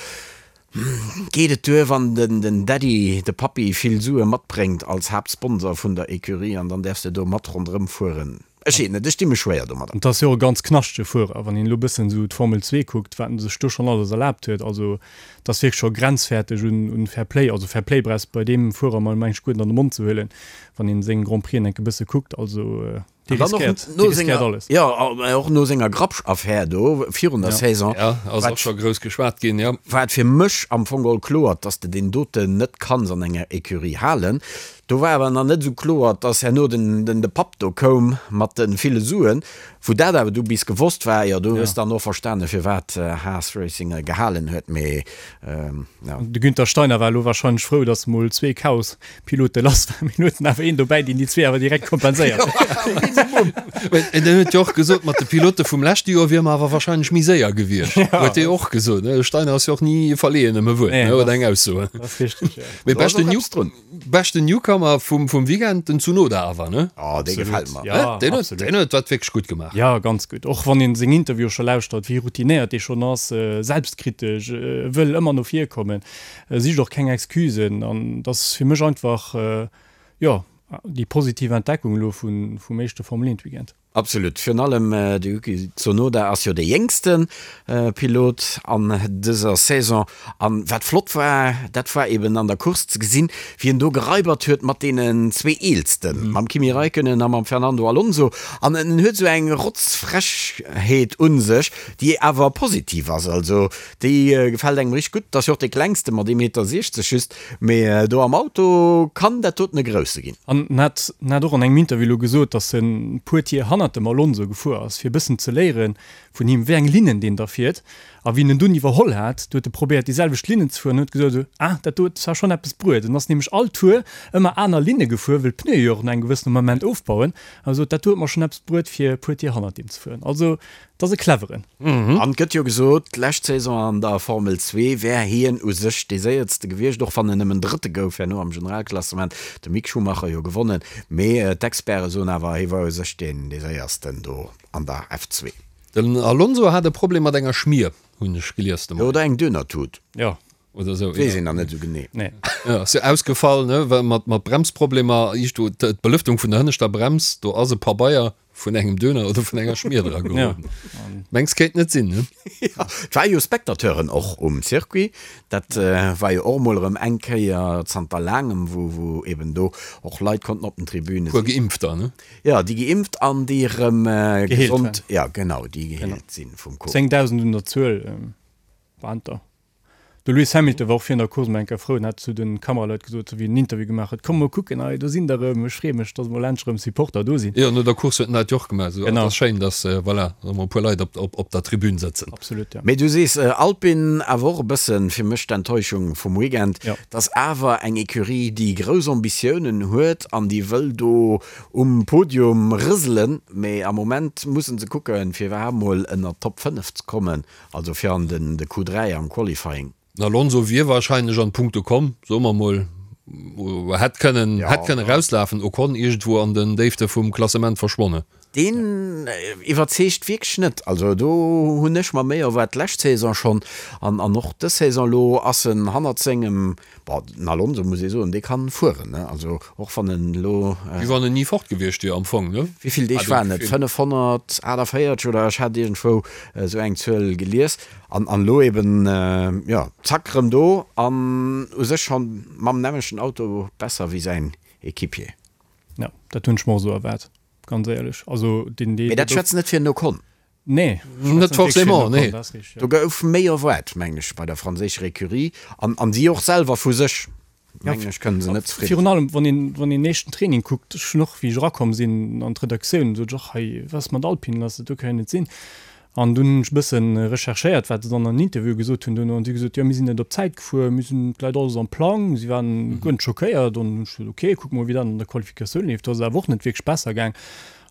Geet et duer, wann den Daddy, de Pappi, vill Sue matbréngt als Haaptsponsor vun der Ecurie an dann däerfs de do mat ronderëm fueren? Ech weess net, ech di mech schwéier domadder. Et ass jo och e ganz knaschtege Fuerer, wann een elo bëssen esou d'Formel 2 kuckt, wat en sech do schonn alles erlaabt huet. Also et ass wierklech scho grenzfäerteg un Fair Play. Also Fair Play brauchs bei deem Fuerer mol mengen ech guer net an de Mond ze huelen, wann een seng Grand Prixen enke bësse kuckt. Also. Dee riskéiert, dee riskéiert alles. Jo, och no senger Grapsch-Affär do virun der Saison. Ja, ass och scho grouss geschwat ginn, jo. War et fir mech am Fong geholl kloer, dass de deen doten net kanns an enger Ecurie halen. Do war awer nach net esou kloer, dass herno den, de Papp do koum mat de ville Suen. Wou dat awer du bis gewosst war, jo, do hues de dann och verstanen, firwat Haas Racing e gehalen huet. Mee, jo. De Günther Steiner war elo wahrscheinlech frou, dass mol zwee Chaos Pilote lass war, mee huet en awer een dobäi, deen déi zwee awer direkt kompenséiert. En huet jo och gesot, mat de Pilote vum leschte Joer wier mer awer wahrscheinlech méi séier gewiescht. Huet dee och gesot. De Steiner ass jo och ni verleeën ëm e Wuert, ne, oder eng Ausso. Dat ass richteg, jo. Mee beschten New, beschten Newcomer vum, vum Weekend, den Tsunoda awer, ne? Oh, dee gefält mer. Ja, Deen huet, deen huet dat wierklech gutt gemaach. Ja, ganz gutt. Och wann een seng Interviewe scho lauschtert, wéi routinéiert dee schonn ass, selbstkritesch, wëll ëmmer no vir kommen. Sicht och keng Excusen an et ass fir mech einfach, jo, déi positiv Entdeckung elo vum éischte Formel 1 Weekend. Absolut, virun allem de Yuki Tsunoda ass jo dee jéngste Pilot an dëser Saison an wat flott war, dat war eben an der Course ze gesinn, wéi en do geraibert huet mat deenen zwee Eelsten, mam Kimi Räikkönen a mam Fernando Alonso an en huet esou eng Rotzfrechheet un sech, déi awer positiv ass. Also Déi gefällt engem richteg gutt. Ass jo och dee klengste mat ee Meter 60 just, mee do am Auto kann dat doten e grousse ginn. An en hat en hat och an engem Interview elo gesot, datt en puer Tier hannert dem Alonso gefuer ass, fir e bëssen ze léiere vun him, wéi eng Linnen deen da fiert. A wéi en en dunn iwwerholl hat, du huet e probéiert déi selwecht Linnen ze fueren an huet gesot, esou, ah, dat do huet zwar schonn eppes bruet. En ass nämlech all Tour ëmmer aner Linne gefuer, wëll d'Pneue jo och no engem gewëssene Moment ofbauen. An e sot, dat do huet mer schonn eppes bruet, fir e puer Tier hannert deem ze fueren. Also Et ass e cleveren. An et gëtt jo gesot, d'lescht Saison an der Formel 2 wär hien u sech dee Séiertste gewiescht, och wann en nëmmen Drëtte gouf herno am Generalklassement, de Mick Schumacher jo gewonnen. Mee d'Experte soen awer, hie war u sech deen dee Séiersten do an der F2. Den Alonso hat e Problem mat enger Schmier, hunn ech gelies de Moien. Oder eng Dönertut. Jo. Oder esou. Weess een nach net esou genee. Nee. Jo, ass jo ausgefall, ne, well mat mat Bremsproblemer, do d'Belëftung vun der hënneschter Brems, do ass e Pabeier vun engem Döner oder vun enger Schmier dra geroden. Mengs kéint net sinn, ne? Jo, et ware jo Spectateuren och um Circuit. Dat war jo och emol erëm eng Kéier zanter laangem, wou wou eben do och Leit konnten op den Tribüne sinn. Puer Geimpfter, ne? Jo, déi geimpft an déi erëm Geheelt gesond, jo genau, déi geheelt sinn vum Covid. 10.000 un der Zuel waren et der. De Lewis Hamilton war och virun der Course mol eng Kéier frou an hat zu de Kameraleit gesot, wéi en en Interview gemaach huet, Komm mol kucken, hei do sinn der erëm, ech freeë mech, datt mol endlech erëm Supporter do sinn. Jo, no der Course huet en dat jo och gemaach, esou, et ass schéin, datt, voilà, erëm e puer Leit op, op, op der Tribün sëtzen. Absolut, jo. Mee du sees Alpine, awer och e bëssen fir mech d'Enttäuschung vum Weekend, dass awer eng Ecurie, déi grouss Ambitiounen huet an déi wëll do um Podium rëselen, mee am Moment mussen se kucken, fir iwwerhaapt mol ënnert d'Top 5 ze kommen. Also fir an den de Q3 am Qualifying. Den Alonso wier wahrscheinlech an d'Punkte komm, soe mer mol, hätt kënnen, hätt kënnen rauslafen, Ocon iergendwou an den Déifte vum Klassement verschwonnen. Deen iwwerzeegt wierklech net. Also do hunn ech mer méi erwaart d'lescht Saison schonn an an och dës Saison. Elo ass en hannert sengem, bon den Alonso muss ee soen, dee kann fueren, ne, also och wann en elo. Wéi wann en ni fort gewiescht wier am Fong, ne? Wéi vill Deeg waren et? 548 oder ech hat iergendwou Esou eng Zuel gelies. An an elo eben, jo, zack, rëm do an u sech schonn mam nämmlechten Auto besser wéi säin Equipier. Jo, dat hunn ech mer och esou erwaart, ganz éierlech. Also deen, dee. Mee dat schwätzt net fir den Ocon. Nee, net forcément, nee. Do gouf méi erwaart, mengen ech, bei der franséischer Ecurie an an si och selwer vu sech. Mengen ech, kënnen se net zefridde sinn. Virun allem, wann een, wann een éischten Training kuckt, ech hunn och, wéi ech erakomm sinn an d'Redaktioun, sot ech och, hei, wat ass mat Alpine lass, dat do ka jo net sinn. An dunn hunn ech e bësse recherchéiert, wat se dann an den Interviewe gesot hunn duerno, an si hu gesot, jo, mir sinn net op d'Zäit gefuer, mir sinn, et läit alles am Plang. Si waren guer net schockéiert. An hunn ech gesot, ok, kucke mol, wéi dat an der Qualifikatioun leeft. Do ass et awer och net wierklech besser gaang.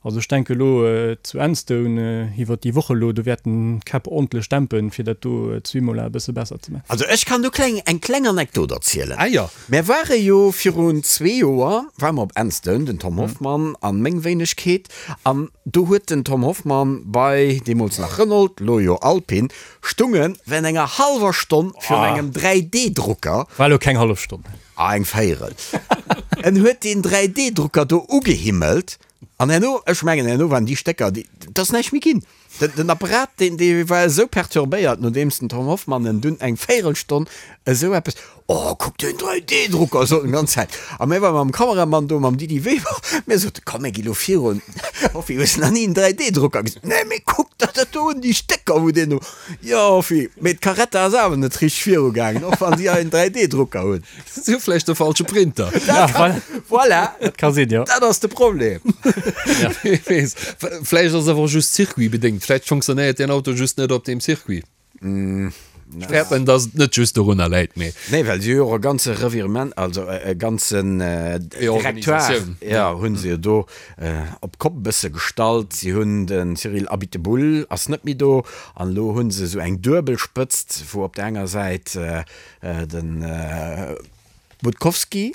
Also ech denke elo zu Enstone iwwert déi Woch elo, do wäerten d'Käpp ordentlech dämpen, fir dat do zu Imola e bësse besser ze maachen. Also ech kann do kleng eng kleng Anekdot erzielen. Ah jo. Mär ware jo virun zwee Joer ware mer op Enstone, den Tom Hoffmann an meng Wéinegkeet, an do huet den Tom Hoffmann bei, deemools nach Renault, lo jo Alpine, stungen während enger hallwer Stonn virun engem 3D-Drucker. War elo keng hallef Stonn. Ah eng Véierel. En huet deen 3D-Drucker do ugehimmelt An herno, ech mengen herno waren déi Stécker, déi, et ass näischt méi ginn. Den Apparat, deen, dee war esou perturbéiert, nodeems den Tom Hoffmann en dunn eng Véirelstonn esou eppes, Oh, kuck deen 3D-Drucker, sot en d'ganz Zäit. A mir ware mam Kameramann do, mam Didi Weber, mir soten, Komm, mir gi lo virun. Hoffi, hues nach ni en 3D-Drucker gesinn? Nee, mee kuck der dat do un, déi Stécker, wou deen do. Jo, Hoffi, mee d'Carretta ass awer net richteg virugaangen, och wann si hei en 3D-Drucker hunn. Si hu vläicht de falsche Printer. Ja, voilà. Voilà. Dat ka sinn, jo. Dat ass de Problem. Wee weess. Vläicht ass et awer och just circuitbedéngt. Vläicht fonctionnéiert deen Auto just net op deem Circuit. Ech fäerten, dass et net just dorunner läit, mee. Nee, well si hu jo och e ganze Revirement, also e ganzen Directoire, jo, hu se jo do op d'Kopp e bësse gestallt. Si hunn de Cyril Abiteboul ass net méi do an elo hu se esou eng duebel Spëtzt, wou op der enger Säit de Budkowski,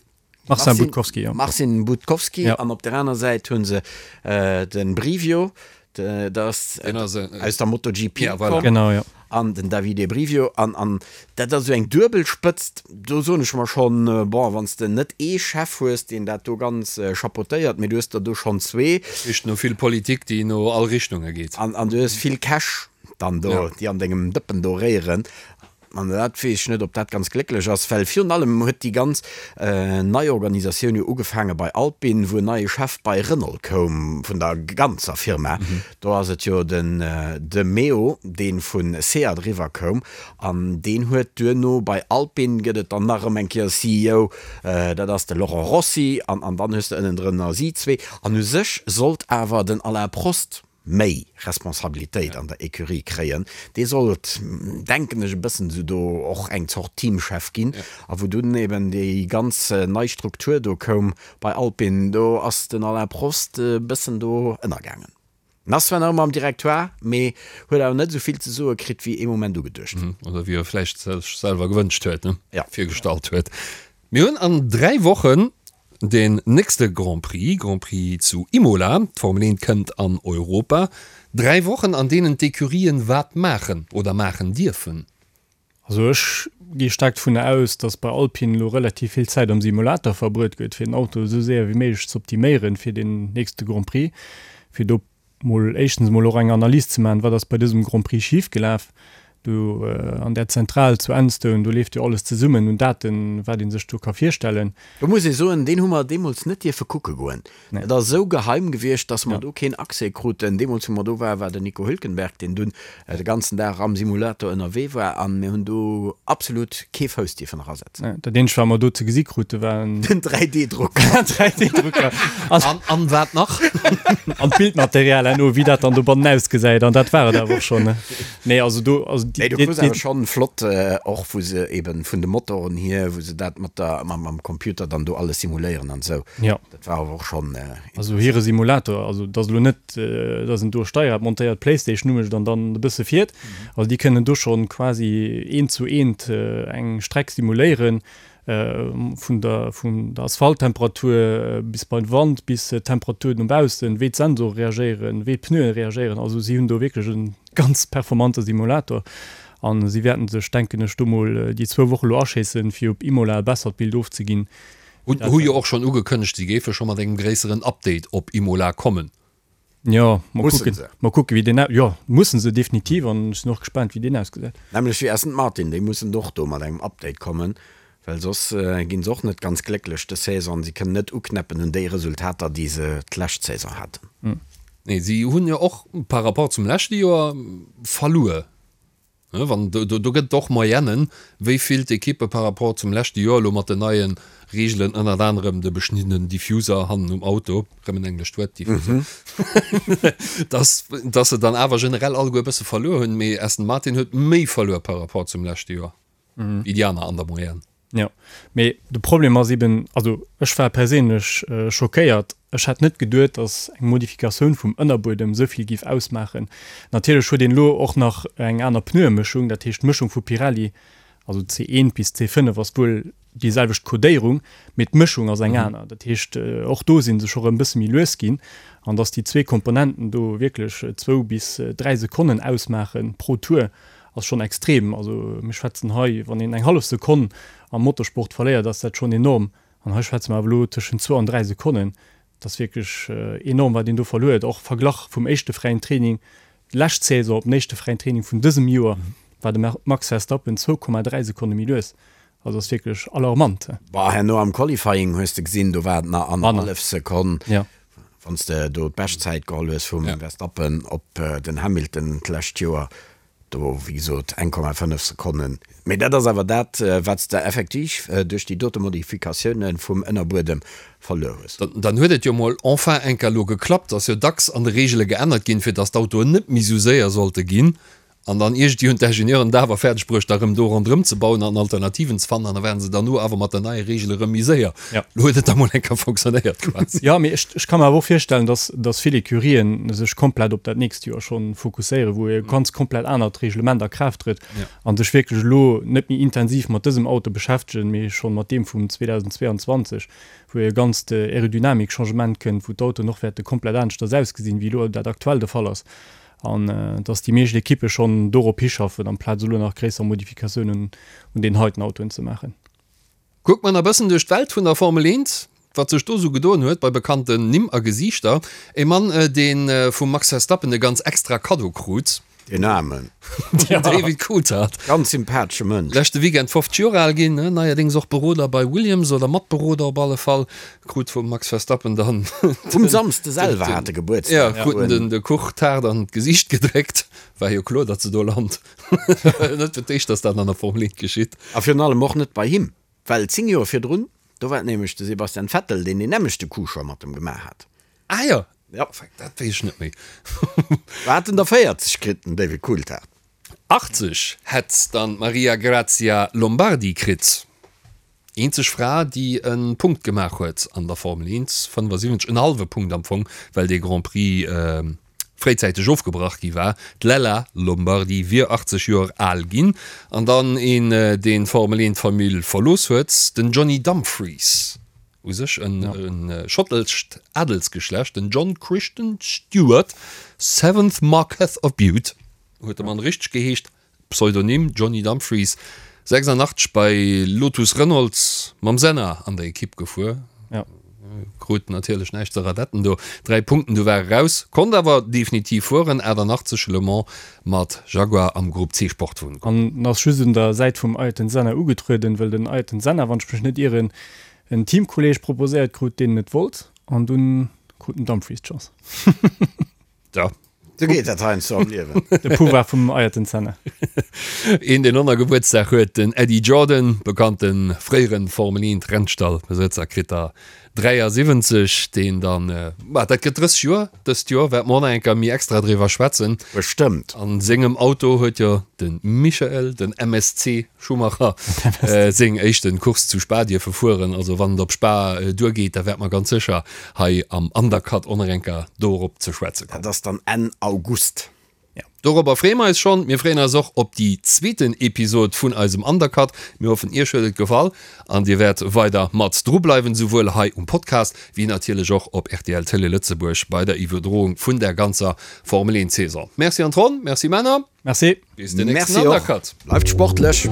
Marcin Budkowski, jo. Marcin Budkowski, ja. An op der aner Säit hunn se den Brivio, dat ass aus der MotoGP ja, voilà. Genau, ja. An den Davide Brivio. An, an dat ass esou eng duebel Spëtzt. Do soen ech mer schonn, bon, wann s de net ee Chef hues, deen dat do ganz chapeautéiert, mee du hues der do schonn zwee. Richt no vill Politik, déi no all Richtunge geet. An, an du hues vill Cash dann do, ja. déi an dengem Dëppen do réieren. An dat weess ech net, ob dat ganz glécklech ass, well virun allem huet déi ganz Neiorganisatioun jo ugefaange bei Alpine, wou en neie Chef bei Renault koum, vun der ganzer Firma. Do ass et jo den de Meo, dee vu Seat eriwwer koum, an deen huet duerno bei Alpine gëtt et dann nach erëm eng Kéier e CEO, dat ass de Laurent Rossi, an dann hues de ënnendrënner si zwee. An u sech sollt awer den Alain Prost, méi Responsabilitéit an der Ecurie kréien, dee sollt, denken ech, e bëssen esou do och eng Zort Teamchef ginn. A wou dunn eben déi ganz nei Struktur do koum bei Alpine, do ass den Alain Prost e bëssen do ënnergaangen. En ass zwar nach ëmmer am Directoire, mee huet awer net esou vill ze soe kritt, wéi ee Moment ugeduecht. Oder wéi e vläicht sech selwer gewënscht huet, ne? Virgestallt huet. Mir hunn an 3 Wochen den nächste Grand Prix, Grand Prix zu Imola. D'Formel 1 kënnt an Europa. 3 Wochen an deenen d'Ecurien wat maachen oder maachen dierfen. Also ech gi staark dovunner aus, datt bei Alpine elo relativ vill Zäit am Simulator verbruet gëtt, fir den Auto esou séier wéi méiglech ze optiméieren fir den nächste Grand Prix, fir do mol éischtens emol och eng Analys ze maachen, wat ass bei dësem Grand Prix schif gelaf. Do an där Zentral zu Enstone, do leeft jo alles zesummen un Daten, wat ee sech do ka virstellen. Do muss ee soen, deen hu mer deemools net dierfe kucke goen. Dat ass esou geheim gewiescht, datt mer do keen Accès kruten. Deemools, wou mer do waren, war den Nico Hülkenberg, deen dunn de ganzen Dag am Simulator ënnerwee war, a mir hunn do absolut kee Fouss dierfen erasetzen. Dat eenzegt, wat mer do ze gesi krute, war en. Den 3D-Drucker. 3D-Drucker. An, an wat nach? An d'Bildmaterial herno, wéi dat dann dobannen ausgesäit. An dat war et awer och schonn. Nee, also do, also déi, Nee, du krus awer schonn flott, och wou se eben vun de Motoren hier, wou se dat mat der, mam, mam Computer dann do alles simuléieren an esou. Ja. Dat war awer och schonn. Also hire Simulator, also et ass elo net, dass en do e Steierrad montéiert, d'Playstation umécht an dann e bësse fiert. Also déi kënnen do schonn quasi eent zu eent eng Streck simuléieren, vun der vun der Asphalttemperatur bis beim Wand, bis d'Temperaturen no baussen, wéi d'Sensore reagéieren, wéi d'Pneuen reagéieren. Also si hunn do wierklech e ganz performante Simulator a si wäerten sech, denken ech, do mol déi zwou Woche lo aschéissen, fir op Imola e bessert Bild ofzeginn. Hu jo och schonn ugekënnegt, si géife scho mat engem gréisseren Update op Imola kommen. Jo, mol kucken, mol kucken wéi deen, jo mussen se definitiv an ech sinn och gespaant wéi deen ausgesäit. Nämlech wéi Aston Martin, déi mussen och do mat engem Update kommen, well soss ginn se och net ganz glécklech dës Saison. Si kënnen net uknäppen un déi Resultater déi se d'lescht Saison haten. Nee, si hunn jo och par rapport zum leschte Joer verluer. Wann, do, do gëtt et och Moyennen, wéi vill d'Ekippe par rapport zum leschte Joer elo mat den neie Reegelen, ënnert anerem de beschniddenen Diffuser hannen um Auto, rëm en englescht Wuert, Diffuser, dass, dass se dann awer generell alleguer e bësse verluer hunn. Mee Aston Martin huet méi verluer par rapport zum leschte Joer wéi déi aner an der Moyenne. Jo, mee de Problem ass eben, also ech war perséinlech schockéiert. Ech hätt net geduet, datt eng Modifikatioun vum Ënnerbuedem esou vill géif ausmaachen. Natierlech huet een elo och nach eng aner Pneuemëschung, dat heescht d'Mëschung vu Pirelli, also C1 bis C5 ass wuel déi selwecht Codéierung, mee d'Mëschung ass eng aner. Dat heescht och do si se scho rëm e bësse méi lues ginn. An datt déi zwee Komponenten do wierklech zwou bis dräi Sekonnen ausmaache pro Tour, ass schonn extrem. Also mir schwätzen hei, wann een eng hallef Sekonn am Motorsport verléiert, ass dat schonn enorm. An hei schwätze mer awer elo tëschent zwou an dräi Sekonnen. Dat ass wierklech enorm, wat een do verluer huet, och verglach vum éischte fräien Training. Lescht Saison op den éischte fräien Training vun dësem Joer war de Max Verstappen 2,3 Sekonne méi lues. Also ass wierklech alarmant. Bah, herno am Qualifying hues de gesinn, do war et nach annerhallef Sekonn, wann s de do d'Beschtzäit geholl hues vum Verstappen op den Hamilton d'lescht Joer. Do, wéi gesot, 1,5 Sekonnen. Mee dat ass awer dat, wat s de effektiv duerch déi dote Modifikatioune vum Ënnerbuedem verluer hues. Dann huet et jo mol enfin eng Kéier elo geklappt. Ass jo dacks an de Reegele geännert ginn, fir datt d'Autoen net méi esou séier sollte ginn. An dann iergendwéi hunn d'Ingenieuren et awer fäerdeg bruecht, da rëm do ronderëm ze bauen an Alternativen ze fannen. An da waren se derno awer mat der neier Reegel erëm méi séier. Elo huet et da mol eng Kéier fonctionnéiert quasi. Jo, mee ech ka mer awer och virstellen, datt datt vill Ecurien sech komplett op dat nächst Joer schonn fokusséieren, wou e ganz komplett anert Reglement a Kraaft trëtt a sech wierklech elo net méi intensiv mat dësem Auto beschäftegen, mee schonn mat deem vum 2022, wou e ganzt Aerodynamik-Changement kënnt, wou d'Autoen och wäerte komplett aneschters ausgesinn, wéi elo dat aktuell de Fall ass, an dass déi meescht Ekippe schonn dorop hischaffen, amplaz elo nach gréisser Modifikatiounen un deenen heiten Autoen ze maachen. Kuckt mer nach bëssen duerch d'Welt vun der Formel 1, wat sech do sou gedoen huet bei bekannten Nimm a Gesiichter. E Mann, dee vum Max Verstappen e ganz extra Kaddo krut. Deen Aarmen. Den David Coulthard. Ganz sympathesche Mënsch. Leschte Weekend 50 Joer al ginn, neierdéngs och Beroder bei Williams oder Matberoder op alle Fall. Krut vum Max Verstappen dann. Um Samsde selwer hat e Gebuertsdag. Jo, krut en de Kuch-Taart an d'Gesiicht gedréckt. War jo kloer, datt se do lant. Net fir d'éischt, dass dat an der Formel 1 geschitt. A virun allem och net bei him, well 10 Joer virdrun, do war et nämlech de Sebastian Vettel, deen deen nämmlechte Coup scho mat em gemaach hat. Ah jo, dat weess ech net méi. War hat en der 40 kritt, den David Coulthard. 80 hätt dann d'Maria Grazia Lombardi kritt. Eenzeg Fra, déi e Punkt gemaach huet an der Formel 1, 75, en hallwe Punkt am Fong, well dee Grand Prix fréizäiteg ofgebrach gi war. D'Lella Lombardi wier 80 Joer al ginn. An dann een, deen d'Formel 1 Famill verlooss huet, den Johnny Dumfries. U sech e schottescht Adelsgeschlecht, den John Christian Stewart, seventh Marquess of Bute huet de Mann richteg geheescht. Pseudonym, Johnny Dumfries, 86 bei Lotus Renault mam Senna an der Ekipp gefuer. Ja. Krut natierlech näischt ze radetten do. 3 Punkten, du war e raus. Konnt awer definitiv fueren, 88 Le Mans mat Jaguar am Grupp C Sportwon. An ass just un der Säit vum Ayrton Senna ugetrueden, well den Ayrton Senna, wann ech mech net ieren, en Teamkolleeg proposéiert krut, deen net wollt. An dunn krut den Dumfries d'Chance. Ja. Sou geet dat heiansdo am Liewen. De Pouvoir vum Ayrton Senna. Een deen och nach Gebuertsdag huet, den Eddie Jordan, bekannte fréiere Formel 1 Rennstallbesëtzer, kritt der 73, deen dann, ma dat gëtt 30 Joer dëst Joer, wäerte mer och nach eng Kéier méi extra driwwer schwätzen. Bestëmmt. An sengem Auto huet jo de Michael, den MSC, Schumacher seng éischten Course zu Spa dierfe fueren. Also wann et op Spa duergeet, da wäerte mer ganz sécher hei am Undercut och nach eng Kéier dorop ze schwätze kommen. Dat ass dann Enn August. Jo, dorobber freeë mer eis schonn. Mir freeën eis och op déi zweeten Episod vun eisem Undercut. Mir hoffen, Iech huet et gefall an Dir wäert weider mat dru bleiwen, souwuel hei um Podcast wéi natierlech och op rtl Télé Lëtzebuerg bei der Iwwerdroung vun der ganzer Formel 1 Saison. Merci an d'Ronn, merci Männer. Merci. Bis den nächsten Undercut. Bleift sportlech.